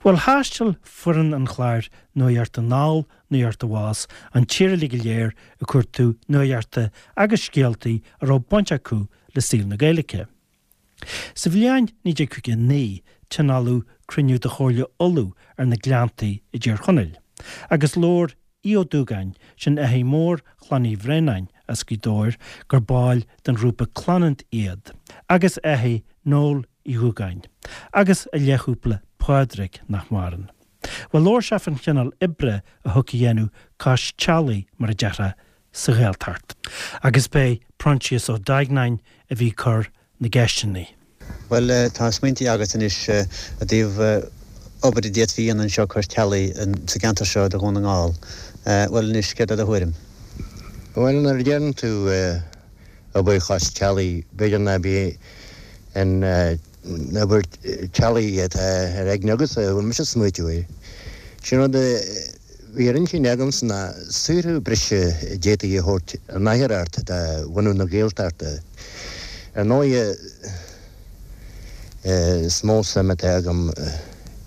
Bhuel, thaistil foireann an chláir Nuacht Anall, Nuacht Abhus an tír uilig go léir ag cuartú nuachta agus scéaltaí a raibh baint acu le saol na Gaeilge. Sa bhliain 1959 tionóladh cruinniú de Chomhairle Uladh ar na Gleanntaí i dTír Chonaill, agus labhair Aodh Ó Dúgáin, sin athair mór Chlann Uí Bhraonáin as Gaoth Dobhair, gur baill den ghrúpa Clannad iad, agus athair Noel Uí Dhúgáin, agus a leathchúpla Pádraig, nach maireann. Bhuel, labhair sé fán chineál oibre a thiocfadh a dhéanamh cois teallaigh, mar a déarfá, sa Ghaeltacht. Agus b'é Proinsias Ó Duigneáin a bhí ag cur na gceisteanna. Bhuel, tá smaointí agat anois i dtaobh obair a d'fhéadfaí a dhéanamh anseo cois teallaigh sa gceantar seo de Dhún na nGall. Bhuel anois, céard é do thuairim? Bhuel, nuair a deireann tú obair chois teallaigh, b'fhéidir ná bí an obair teallaigh atá ar aigne agatsa, a bhfuil mise ag smaoitiú air. Sin rud a bhí ar intinn agamsa ná saothrú breise a d'fhéadfaí a thabhairt in athuair do bhunadh na Gaeltachta. Ar ndóighe, is mó suim atá agam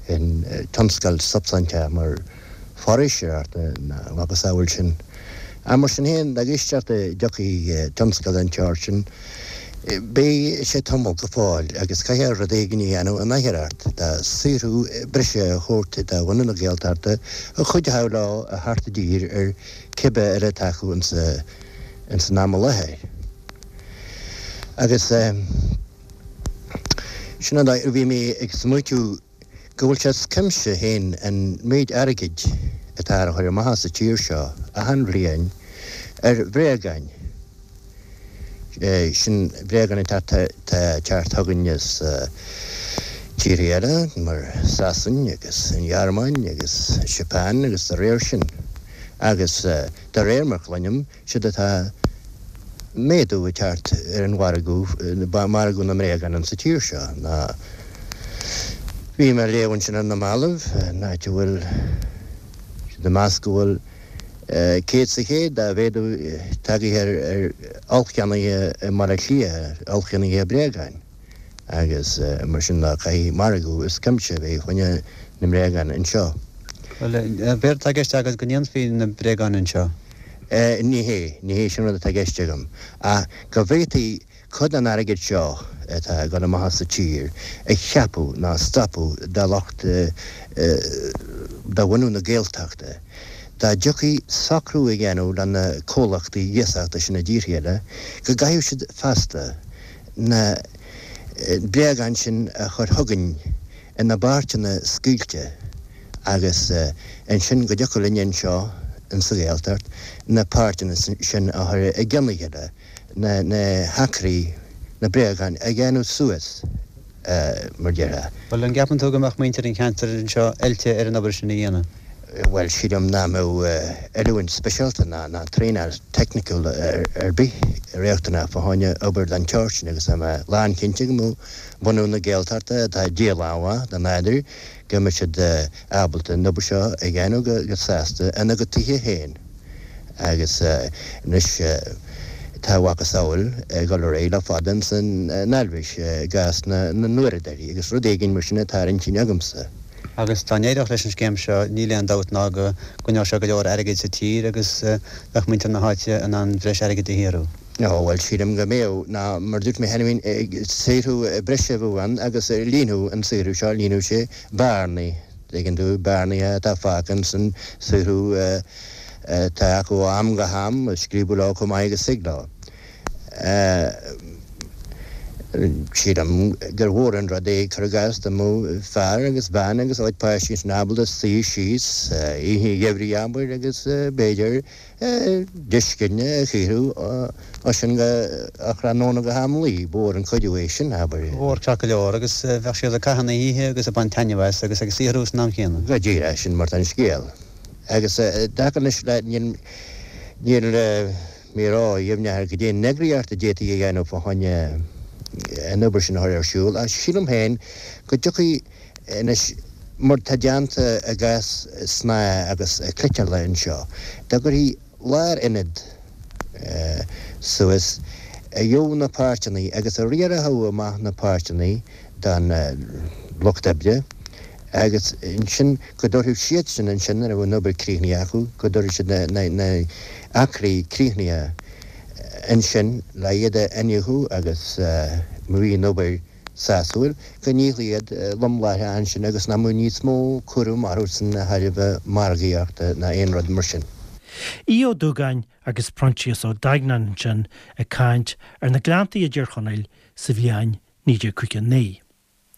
in tionscal substainteach mar foraoiseoireacht ná a mhacasamhail sin. Ach mar sin féin, dá gcloistear go dtiocfaidh tionscal den tseort sin, beidh sé tamall go fóill agus caithfear rud éigin a dhéanamh in athuair de saothrú breise a thabhairt do bhunadh na Gaeltachta a chuideochadh leo a theacht i dtír ar cibé eile atá acu ins an am i láthair. Agus sin an dóigh a bhí mé ag smaoitiú go bhfuil sé as cuimse féin an méid airgid atá á chur amach as an tír seo achan bhliain ar bhréagáin. Sin bréagáin atá ag teacht chugainn as tíortha eile mar Sasain agus an Ghearmáin agus Japan agus dá réir sin. Agus de réir mar chluinim, Séard atá méadú ag teacht ar an mhargadh, margadh na mbréagán insa tír seo ná bhí mé ag léamh ansin ar na mallaibh, in áit a bhfuil siad ag meas go bhfuil 100% de mhéadú tagaithe ar ollcheannaithe i mBaile Átha Cliath, ollcheannaithe bréagáin. agus mar sin de caithfidh margadh as cuimse a bheith fá choinne na mbréagán anseo. Bhuel, b'éard atá i gceist agat go ndéanfaí na bréagáin anseo? Ní hé, ní hé sin rud atá i gceist agam, ach go bhféadfaí cuid den airgead seo atá ag dul amach as an tír a cheapadh ná a stopadh do lucht de bhunú na Gaeltachta, dá dtiocfaí socrú a dhéanamh le na comhlachtaí iasachta sin i dtíortha eile go gcaithfeadh siad feasta na bréagáin sin a chur chugainn ina bpáirteanna scaoilte agus ansin go dtiocfadh linne anseo insa Ghaeltacht na páirteanna sin a chur i gcionn a chéile, na hacraí, na bréagáin a dhéanamh suas, mar déarfá. Bhuel, an gceapann tú go mbeadh muintir an cheantair anseo oilte ar an obair sin a dhéanamh? Bhuel, sílim nach mbeadh oiliúint speisialta ná traenáil teicniciúil ar bith riachtanach fá choinne obair den tseort sin agus tá mé lánchinnte go mbeadh bunadh na Gaeltachta, atá díobhálach de nádúr, go mbeadh siad ábalta an obair seo a dhéanamh go sásta ina gcuid tithe féin. Agus anois tá a mhacasamhail ag dul ar aghaidh le fada ins an Eilvéis i gcás na n-uaireadóirí agus rud éigin mar sin atá ar intinn agamsa. Agus dá n-éireodh leis an scéim seo, níl aon dabht ná go gcoinneodh sé go leor airgid sa tír agus bheadh muintir na háite in ann breis airgid a shaothrú. Ó, bhuel, sílim go mbeadh, ná mar a dúirt mé cheana féin, saothrú breise a bheadh ann agus líonfadh an saothrú seo, líonfadh sé bearnaí, tuigeann tú, bearnaí atá fágtha ins an saothrú atá acu ó am go ham, a scríobadh leo chomh maith agus thig leo. Sílim gur mhór an rud é, cuir i gcás, dá mbeadh fear agus bean agus a gcuid páistí ansin ábalta suí síos oíche gheimhridh, abair, agus b'fhéidir deisceanna a shaothrú ó sin go tráthnóna go ham luí. Ba mhór an cuidiú é sin, abair. Ba mhór ceart go leor, agus bheadh siad ag caitheamh na hoíche agus ag baint taitneamh as agus ag saothrú san am chéanna. Go díreach, sin mar atá an scéal. Agus i dtaca anois le, níl, níl, mé ródheimhneach ar goidé an eagraíocht a d'fhéadfaí a dhéanamh fá choinne an obair sin a chur ar siúl, ach sílim féin go dtiocfaidh anois, mar tá déanta i gcás snáithe agus cniotála anseo, dá gcuirfí lárionad suas a gheobhadh na páirteanna agus a riarfadh amach na páirteanna don lucht oibre. Agus ansin go dtabharfadh siadsan ansin nuair a bheadh an obair críochnaithe acu, go dtabharfadh siad na acraí críochnaithe ansin le iad a iniúchadh agus má bhí an obair sásúil, go ndíolfaí iad lom láithreach ansin agus nach mbeadh níos mó cúram orthusan de thairbhe margaíochta ná aon rud mar sin. Aodh Ó Dúgáin agus Proinsias Ó Duigneáin ansin ag caint ar na Gleanntaí i dTír Chonaill sa bhliain 1959.